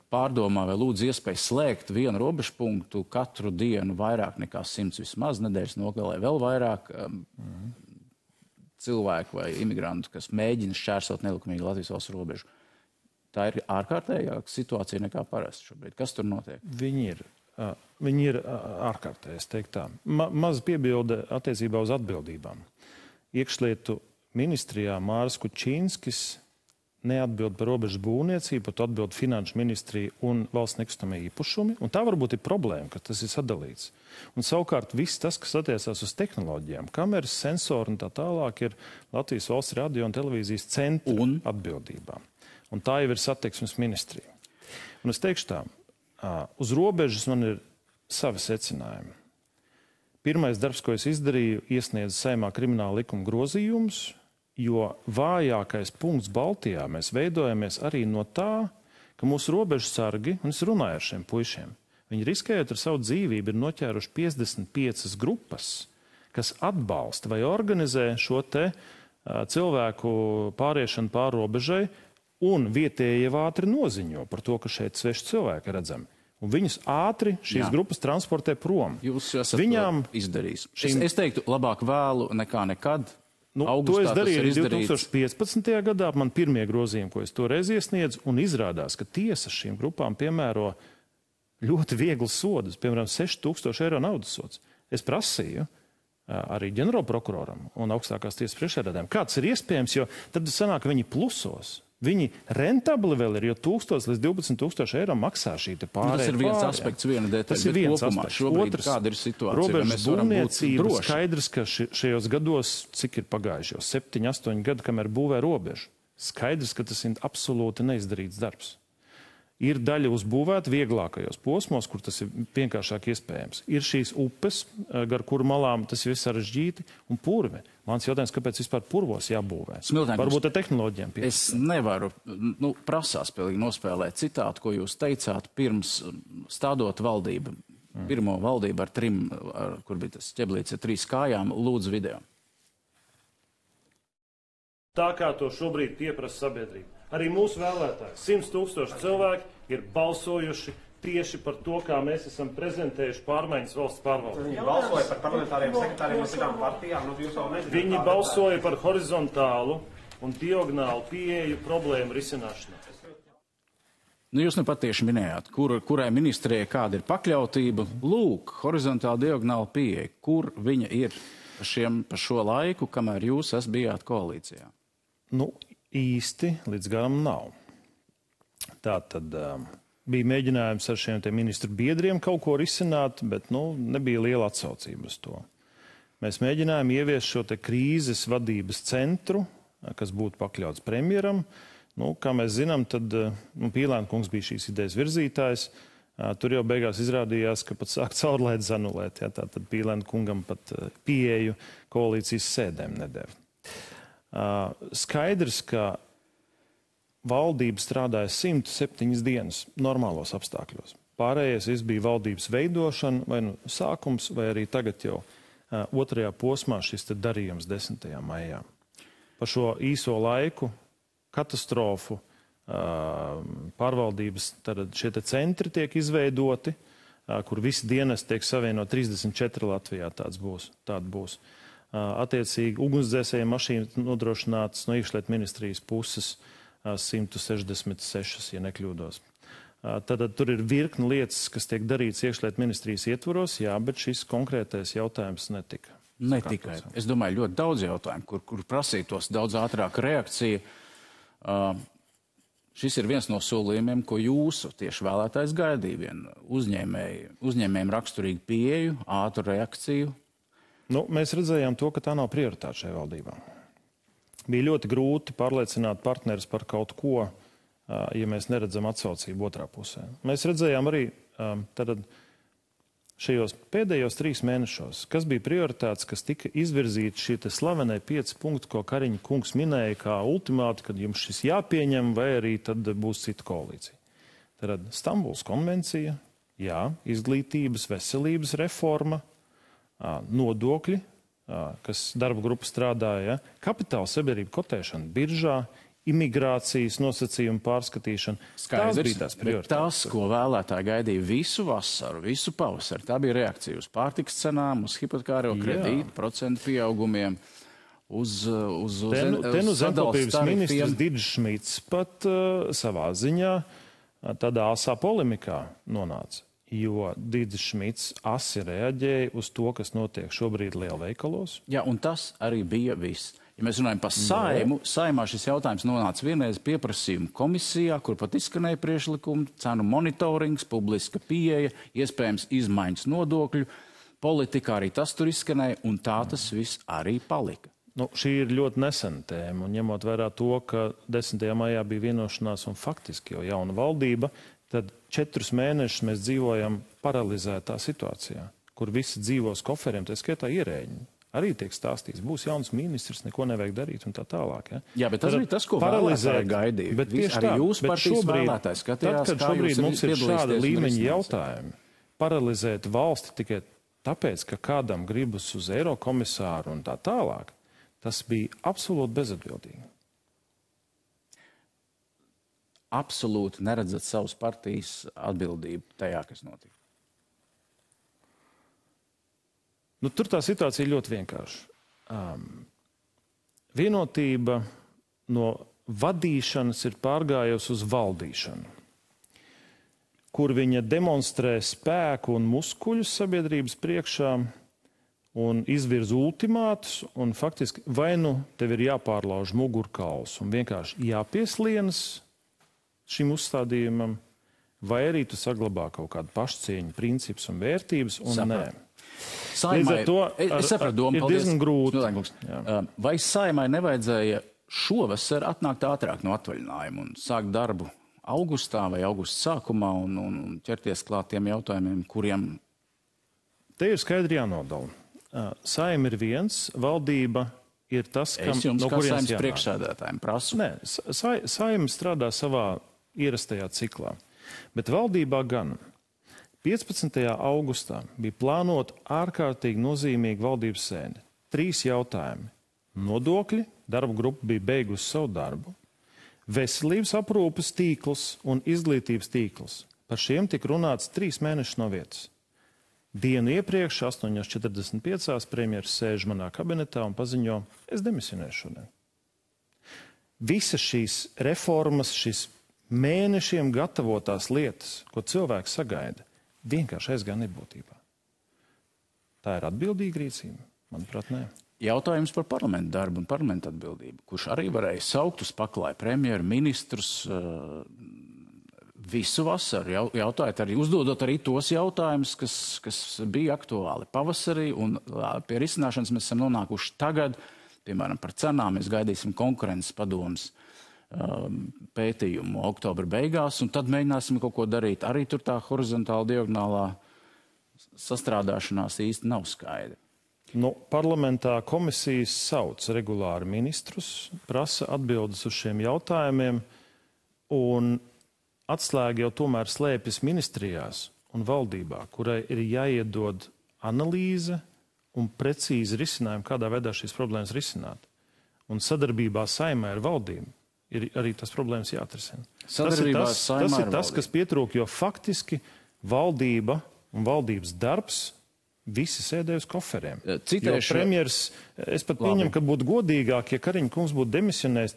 pārdomā vai lūdz iespēju slēgt vienu robežpunktu katru dienu vairāk nekā 100 vismaz, nedēļas nogalē vēl vairāk cilvēku vai imigrantu, kas mēģina šķērsot nelikumīgi Latvijas valsts robežu. Tā ir ārkārtējāka situācija nekā parasti šobrīd. Kas tur notiek? Viņi ir ārkārtēji, es teiktu tā. Maz piebilde attiecībā uz atbildībām. Iekšlietu ministrijā Māris Kučīnskis neatbild par robežu būvniecību, par to atbild Finanšu ministrija un valsts nekustamie īpašumi. Un tā varbūt ir problēma, ka tas ir sadalīts. Un savukārt viss tas, kas attiecās uz tehnoloģijām, kameras, sensori un tā tālāk, ir Latvijas valsts radio un televīzijas centra atbildībām. Un tā jau ir satiksmes ministrija. Un es teikšu tā, uz robežas man ir savi secinājumi. Pirmais darbs, ko es izdarīju, iesniedzu Saeimā krimināla likuma grozījumus, jo vājākais punkts Baltijā mēs veidojamies arī no tā, ka mūsu robežsargi, un es runāju ar šiem puišiem, viņi riskējot ar savu dzīvību ir noķēruši 55 grupas, kas atbalsta vai organizē šo te cilvēku pāriešanu pāri robežai, un vietējie ātri noziņo par to, ka šeit sveši cilvēki redzami. Un viņus ātri šīs grupas transportē prom. Jūs esat izdarījis. Es teiktu, labāk vēlu nekā nekad. To es darīju arī 2015. gadā. Man pirmie grozījumi, ko es toreiz iesniedzu, un izrādās, ka tiesa šīm grupām piemēro ļoti vieglas sodus, piemēram, 6000 eiro naudas sods. Es prasīju arī ģenerālprokuroram un augstākās tiesas priekšsēdētājiem, kāds ir iespējams, jo tad sanāk, ka viņi plusos. Viņi rentabli vēl ir, jo 1000 līdz 12 000 eiro maksā šī te pārējā. Tas ir viens aspekts, viena detaļa. Tas ir viens aspekts. Šobrīd kāda ir situācija? Robežas būvniecība skaidrs, ka šajos gados, cik ir pagājuši jau 7-8 gadi, kamēr būvē robežu, skaidrs, ka tas ir absolūti neizdarīts darbs. Ir daļa uzbūvēta vieglākajos posmos, kur tas ir vienkāršāk iespējams. Ir šīs upes, gar kuru malām tas ir sarežģīti, un purve. Mans jautājums, kāpēc vispār purvos jābūvē? Varbūt ar tehnoloģiem pie. Es nevaru, prasās pilnīgi nospēlēt citātu, ko jūs teicāt pirms stādot valdību. Pirmo valdību ar 3, kur bija tas ķeblīts ar 3 kājām, lūdzu video. Tā kā to šobrīd pieprasa sabiedrība. Arī mūsu vēlētāji, 100 000 cilvēki ir balsojuši tieši par to, kā mēs esam prezentējuši pārmaiņas valsts pārvaldē. Viņi balsoja par parlamentāriem sekretāriem no citām partijām, jūs jau nezināt. Viņi balsoja par horizontālu un diagonālu pieeju problēmu risināšanā. Jūs nepatieši minējāt, kurai ministrijai kāda ir pakļautība. Lūk, horizontāla diagonāla pieeja. Kur viņa ir pa šo laiku, kamēr jūs bijāt koalīcijā? Īsti līdz garam nav. Tā tad bija mēģinājums ar šiem ministru biedriem kaut ko risināt, bet nebija liela atsaucība uz to. Mēs mēģinājām ieviest šo te krīzes vadības centru, kas būtu pakļauts premjeram. Kā mēs zinām, tad Pīlēna kungs bija šīs idejas virzītājs. Tur jau beigās izrādījās, ka pat sāk caurlaidus anulēt. Tātad Pīlēna kungam pat pieeju koalīcijas sēdēm nedēva. Skaidrs, ka valdība strādāja 107 dienas normālos apstākļos. Pārējais viss bija valdības veidošana, vai sākums, vai arī tagad jau otrajā posmā šis darījums 10. maijā. Par šo īso laiku, katastrofu, pārvaldības, tad šie centri tiek izveidoti, kur visi dienesti tiek savienot 34 Latvijā, tāda būs. Attiecīgi ugunsdzēsēju mašīnas nodrošinātas no iekšlietu ministrijas puses 166, ja nekļūdos. Tad tur ir virkni lietas, kas tiek darīts iekšlietu ministrijas ietvaros, jā, bet šis konkrētais jautājums netika. Ne tikai. Es domāju, ļoti daudz jautājumu, kur prasītos daudz ātrāka reakcija. Šis ir viens no solījumiem, ko jūsu tieši vēlētājs gaidīja. Vien uzņēmējiem raksturīgu pieeju, ātru reakciju. Mēs redzējām to, ka tā nav prioritāte šai valdībā. Bija ļoti grūti pārliecināt partnerus par kaut ko, ja mēs neredzam atsaucību otrā pusē. Mēs redzējām arī šajos pēdējos 3 mēnešos, kas bija prioritātes, kas tika izvirzīti šie slavenai 5 punkti, ko Kariņa kungs minēja kā ultimāti, kad jums šis jāpieņem, vai arī tad būs cita koalīcija. Tad Stambulas konvencija, jā, izglītības, veselības reforma, nodokļi, kas darba grupa strādāja, kapitāla sabiedrība kotēšana biržā, imigrācijas nosacījumu pārskatīšana. Skaidrs, tās bija tās prioritātes. Tas, ko vēlētāji gaidīja visu vasaru, visu pavasaru, tā bija reakcija uz pārtikas cenām, uz hipotekāro kredītu, procentu pieaugumiem, uz zemkopības ministrs Didžs Šmits pat savā ziņā tādā asā polemikā nonāca. Jo Didžs Šmits asi reaģēja uz to, kas notiek šobrīd lielveikalos. Jā, un tas arī bija viss. Ja mēs runājam par Saimu, Saimā šis jautājums nonāca vienreiz pieprasījuma komisijā, kur pat izskanēja priekšlikumi, cenu monitorings, publiska pieeja, iespējams izmaiņas nodokļu politikā, arī tas tur izskanēja, un tā tas viss arī palika. Šī ir ļoti nesena tēma, un ņemot vērā to, ka 10. maijā bija vienošanās un faktiski jau jauna valdība, tad 4 mēnešus mēs dzīvojam paralizētā situācijā, kur visi dzīvos koferiem, tā skaitā ierēģi. Arī tiek stāstīts, būs jauns ministrs, neko nevajag darīt un tā tālāk. Jā, bet tas bija tas, ko vēlētāji gaidīja. Bet tieši arī jūs partijas vēlētāji skatījās, tad, kad šobrīd mums ir šāda līmeņa jautājumi, paralizēt valsti tikai tāpēc, ka kādam gribas uz Eirokomisāru un tā tālāk, tas bija absolūti bezatbildīgi. Absolūti neredzat savas partijas atbildību tajā, kas notika? Tur tā situācija ir ļoti vienkārša. Vienotība no vadīšanas ir pārgājusi uz valdīšanu, kur viņa demonstrē spēku un muskuļus sabiedrības priekšā un izvirz ultimātus, un faktiski vai tev ir jāpārlauž mugurkauls un vienkārši jāpieslienas šim uzstādījumam, vai arī tu saglabā kaut kādu pašcieņu, principus un vērtības, un nē. Saimai, es sapratu domu, ir diezgan grūti. Vai Saimai nevajadzēja šovasar atnākt ātrāk no atvaļinājuma un sākt darbu augustā vai augusta sākumā un ķerties klāt tiem jautājumiem, kuriem... Te ir skaidri jānodala. Saima ir viens, valdība ir tas, kam, es jums no kā kurienes Saeimas jānāk. priekšsēdētājiem prasu. Nē, Saima strādā savā ierastajā ciklā, bet valdībā gan 15. augustā bija plānota ārkārtīgi nozīmīga valdības sēde. 3 jautājumi. Nodokļi, darba grupa bija beigusi savu darbu, veselības aprūpes tīkls un izglītības tīkls. Par šiem tika runāts 3 mēnešus no vietas. Dienu iepriekš, 8:45, premjeras sēž manā kabinetā un paziņo, es demisionēšu šodien. Visas šīs reformas, šīs mēnešiem gatavotās lietas, ko cilvēks sagaida, vienkārši aizgāja nebūtībā. Tā ir atbildīga rīcība? Manuprāt, nē. Jautājums par parlamentu darbu un parlamentu atbildību, kurš arī varēja saukt uz paklāju premjeru, ministrus visu vasaru, jautājot arī, uzdodot arī tos jautājumus, kas bija aktuāli pavasarī, un pie risināšanas mēs esam nonākuši tagad, piemēram, par cenām, mēs gaidīsim konkurences padomas pētījumu oktobra beigās, un tad mēģināsim kaut ko darīt. Arī tur tā horizontāla diagonālā sastrādāšanās īsti nav skaidra. Parlamentā komisijas sauc regulāri ministrus, prasa atbildes uz šiem jautājumiem, un atslēga jau tomēr slēpjas ministrijās un valdībā, kurai ir jāiedod analīze un precīzi risinājumi, kādā veidā šīs problēmas risināt. Un sadarbībā Saeimai ar valdību ir arī tas problēmas jāatrisina. Tas ir tas, kas pietrūk, jo faktiski valdība un valdības darbs visi sēdēja uz koferiem. Citēšu, premjers, es pat pieņemu, ka būtu godīgāk, ja Kariņa kungs būtu demisionējis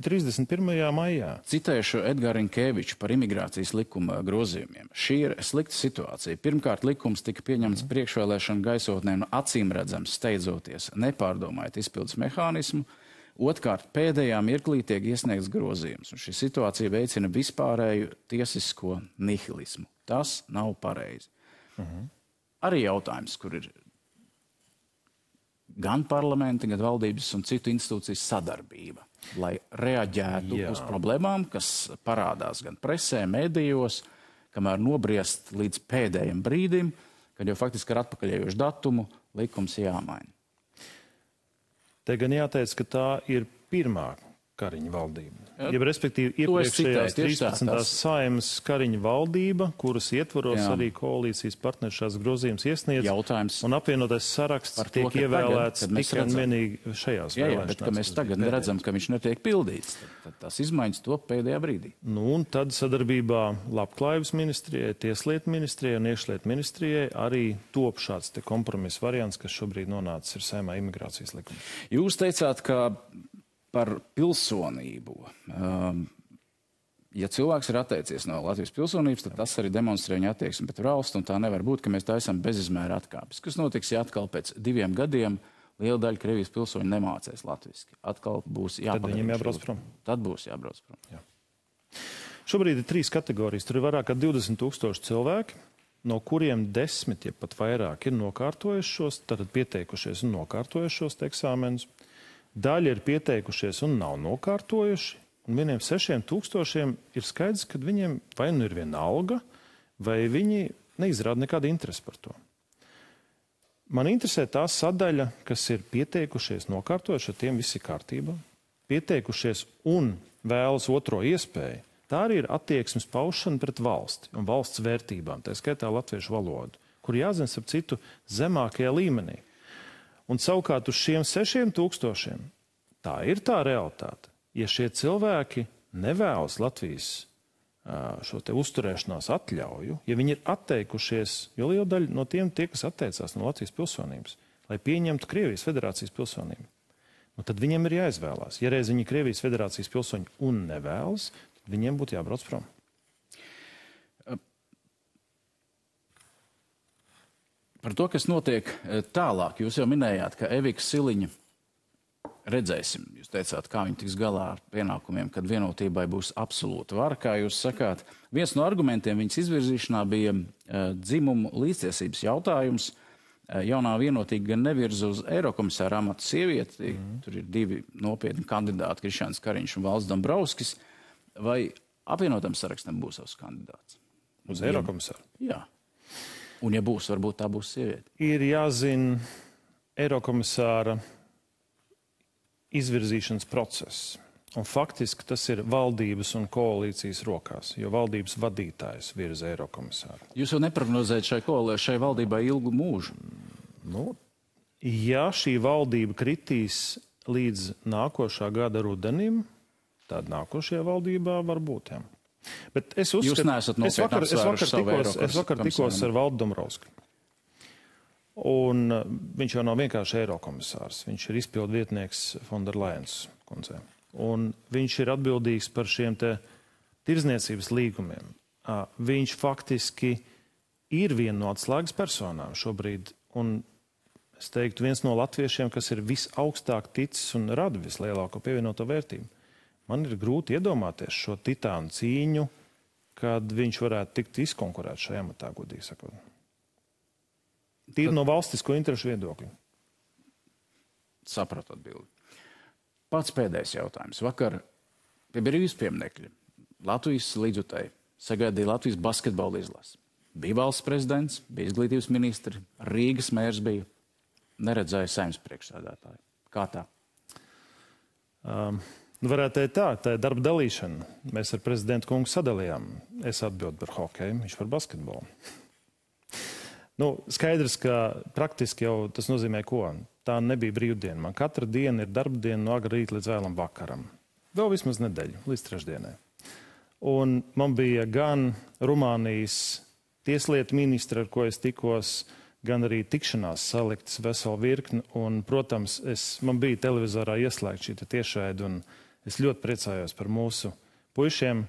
31. maijā. Citēšu Edgāru Rinkēviču par imigrācijas likuma grozījumiem. Šī ir slikta situācija. Pirmkārt, likums tika pieņemts priekšvēlēšanu gaisotnē un acīm redzams steidzoties, nepārdomājot izpildes mehānismu. Otrkārt, pēdējā mirklī tiek iesniegts grozījums, un šī situācija veicina vispārēju tiesisko nihilismu. Tas nav pareizi. Arī jautājums, kur ir gan parlamenta, gan valdības un citu institūciju sadarbība, lai reaģētu uz problēmām, kas parādās gan presē, medijos, kamēr nobriest līdz pēdējiem brīdim, kad jau faktiski ar atpakaļējošu datumu likums jāmaina. Te gan jāteic, ka tā ir pirmā Kariņa valdība. Ja, respektīvi, iepriekšējās 13. Saeimas Kariņa valdība, kuras ietvaros arī koalīcijas partneri šās grozījumus iesniedz, jautājums un apvienotais saraksts tiek ievēlēts tikai un vienīgi šajās vēlēšanās. Bet, ka mēs tagad redzam, ka viņš netiek pildīts, tad tās izmaiņas top pēdējā brīdī. Un tad sadarbībā Labklājības ministrijai, Tieslietu ministrijai un Iekšlietu ministrijai arī top šāds te kompromiss variants, kas šobrīd nonācis ir Saeimā imigrācijas likuma. Jūs teicāt, ka par pilsonību. Ja cilvēks ir atteicies no Latvijas pilsonības, tad tas arī demonstrē viņa attieksmi pret valsti, un tā nevar būt, ka mēs taisām bezizmēra atkāpes. Kas notiks, ja atkal pēc 2 gadiem liela daļa Krievijas pilsoņu nemācēs latviski? Atkal būs jāpadara. Tad viņiem jābrauc prom. Tad būs jābrauc prom. Jā. Šobrīd ir 3 kategorijas. Tur ir vairāk kā 20,000 cilvēki, no kuriem 10, ja pat vairāk, ir nokārtojuši šos, tātad pieteikušies un nokārtojuši šos eksāmenus. Daļa ir pieteikušies un nav nokārtojuši, un vieniem 6,000 ir skaidrs, ka viņiem vai nu ir viena alga, vai viņi neizrāda nekādu interesi par to. Man interesē tā sadaļa, kas ir pieteikušies, nokārtojuši, ar tiem viss ir kārtībā, pieteikušies un vēlas otro iespēju. Tā arī ir attieksmes paušana pret valsti un valsts vērtībām, tā skaitā latviešu valodu, kur jāzina ap citu zemākajā līmenī. Un savukārt uz šiem 6,000 tā ir tā realitāte. Ja šie cilvēki nevēlas Latvijas šo te uzturēšanās atļauju, ja viņi ir atteikušies, jo liela daļa no tiem tie, kas atteicās no Latvijas pilsonības, lai pieņemtu Krievijas federācijas pilsonību, tad viņiem ir jāizvēlās. Ja reiz viņi Krievijas federācijas pilsoņi un nevēlas, tad viņiem būtu jābrauc prom. Par to, kas notiek tālāk, jūs jau minējāt, ka Evika Siliņa, redzēsim, jūs teicāt, kā viņi tiks galā ar pienākumiem, kad vienotībai būs absolūta vara, kā jūs sakāt. Viens no argumentiem viņas izvirzīšanā bija dzimumu līdztiesības jautājums. Jaunā vienotīga gan nevirza uz eirokomisāra amatu sievieti, tur ir 2 nopietni kandidāti, Krišjāns Kariņš un Valds Dombrovskis. Vai apvienotam sarakstam būs savs kandidāts. Uz Eirokomisāru? Jā. Un ja būs, varbūt tā būs sieviete. Ir jāzina Eirokomisāra izvirzīšanas process. Un faktiski tas ir valdības un koalīcijas rokās, jo valdības vadītājs virza Eirokomisāru. Jūs jau neprognozējat šai valdībai ilgu mūžu? Nu, ja šī valdība kritīs līdz nākošā gada rudenim, tad nākošajā valdībā var būt. Jā. Bet es uzskatu, Jūs neesat nopietni apsvēruši savu es vakar tikos ar Valdu Dombrovski. Un viņš jau nav vienkārši Eirokomisārs. Viņš ir izpildu vietnieks Fonderlajens kundzei. Un viņš ir atbildīgs par šiem te tirdzniecības līgumiem. Viņš faktiski ir viena no atslēgas personām šobrīd. Un es teiktu, viens no latviešiem, kas ir visaugstāk ticis un rada vislielāko pievienoto vērtību. Man ir grūti iedomāties šo titānu cīņu, kad viņš varētu tikt izkonkurēt šajā amatā, godīgi sakot. Tīri no valstisko interešu viedokļa. Sapratu atbildi. Pats pēdējais jautājums. Vakar pie brīvības pieminekļa Latvijas līdzjutēji sagaidīja Latvijas basketbola izlasi. Bija valsts prezidents, bija izglītības ministri, Rīgas mērs bija. Neredzēja Saeimas priekšsēdētāju. Kā tā? Varētu teikt tā ir darba dalīšana. Mēs ar prezidentu kungu sadalījām. Es atbildu par hokeju, viņš par basketbolu. Skaidrs, ka praktiski jau tas nozīmē ko? Tā nebija brīvdiena. Man katra diena ir darba diena no agra rīta līdz vēlam vakaram. Vēl vismaz nedēļu, līdz trešdienai. Un man bija gan Rumānijas tieslietu ministra, ar ko es tikos, gan arī tikšanās saliktas veselu virkni. Un, protams, man bija televizorā ieslēgta šī tiešraide, un es ļoti priecājos par mūsu puišiem.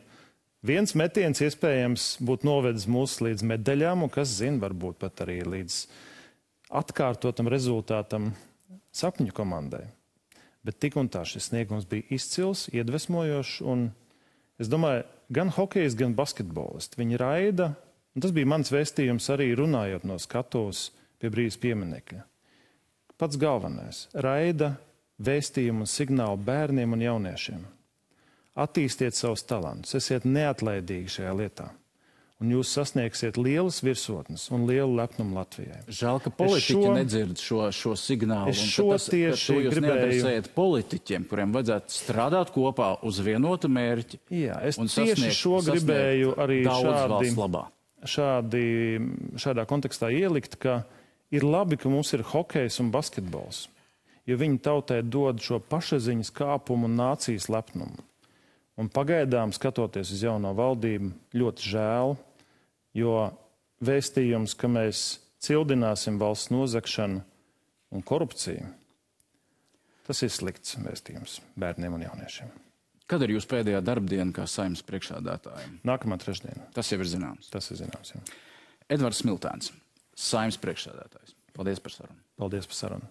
Viens metiens iespējams būtu novedis mūs līdz medaļām, un kas zina, varbūt pat arī līdz atkārtotam rezultātam sapņu komandai. Bet tik un tā šis sniegums bija izcils, iedvesmojošs, un es domāju, gan hokejs, gan basketbolisti. Viņi raida, un tas bija mans vēstījums arī runājot no skatuves pie brīvības pieminekļa. Pats galvenais - raida vēstījumu un signālu bērniem un jauniešiem. Attīstiet savus talantus, esiet neatlaidīgi šajā lietā. Un jūs sasniegsiet lielas virsotnes un lielu lepnumu Latvijai. Žēl, ka politiķi nedzird šo signālu. Es šo tieši jūs neadresējat politiķiem, kuriem vajadzētu strādāt kopā uz vienotu mērķi. Jā, es tieši šo gribēju arī šādā kontekstā ielikt, ka ir labi, ka mums ir hokejs un basketbols, jo viņi tautai dod šo pašaziņas kāpumu un nācijas lepnumu. Un pagaidām, skatoties uz jauno valdību, ļoti žēl, jo vēstījums, ka mēs cildināsim valsts nozagšanu un korupciju, tas ir slikts vēstījums bērniem un jauniešiem. Kad ir jūsu pēdējā darbdiena kā Saeimas priekšsēdētājiem? Nākamā trešdiena. Tas jau ir zināms. Tas ir zināms, jā. Edvards Smiltēns, Saeimas priekšsēdētājs. Paldies par sarunu. Paldies par sarunu.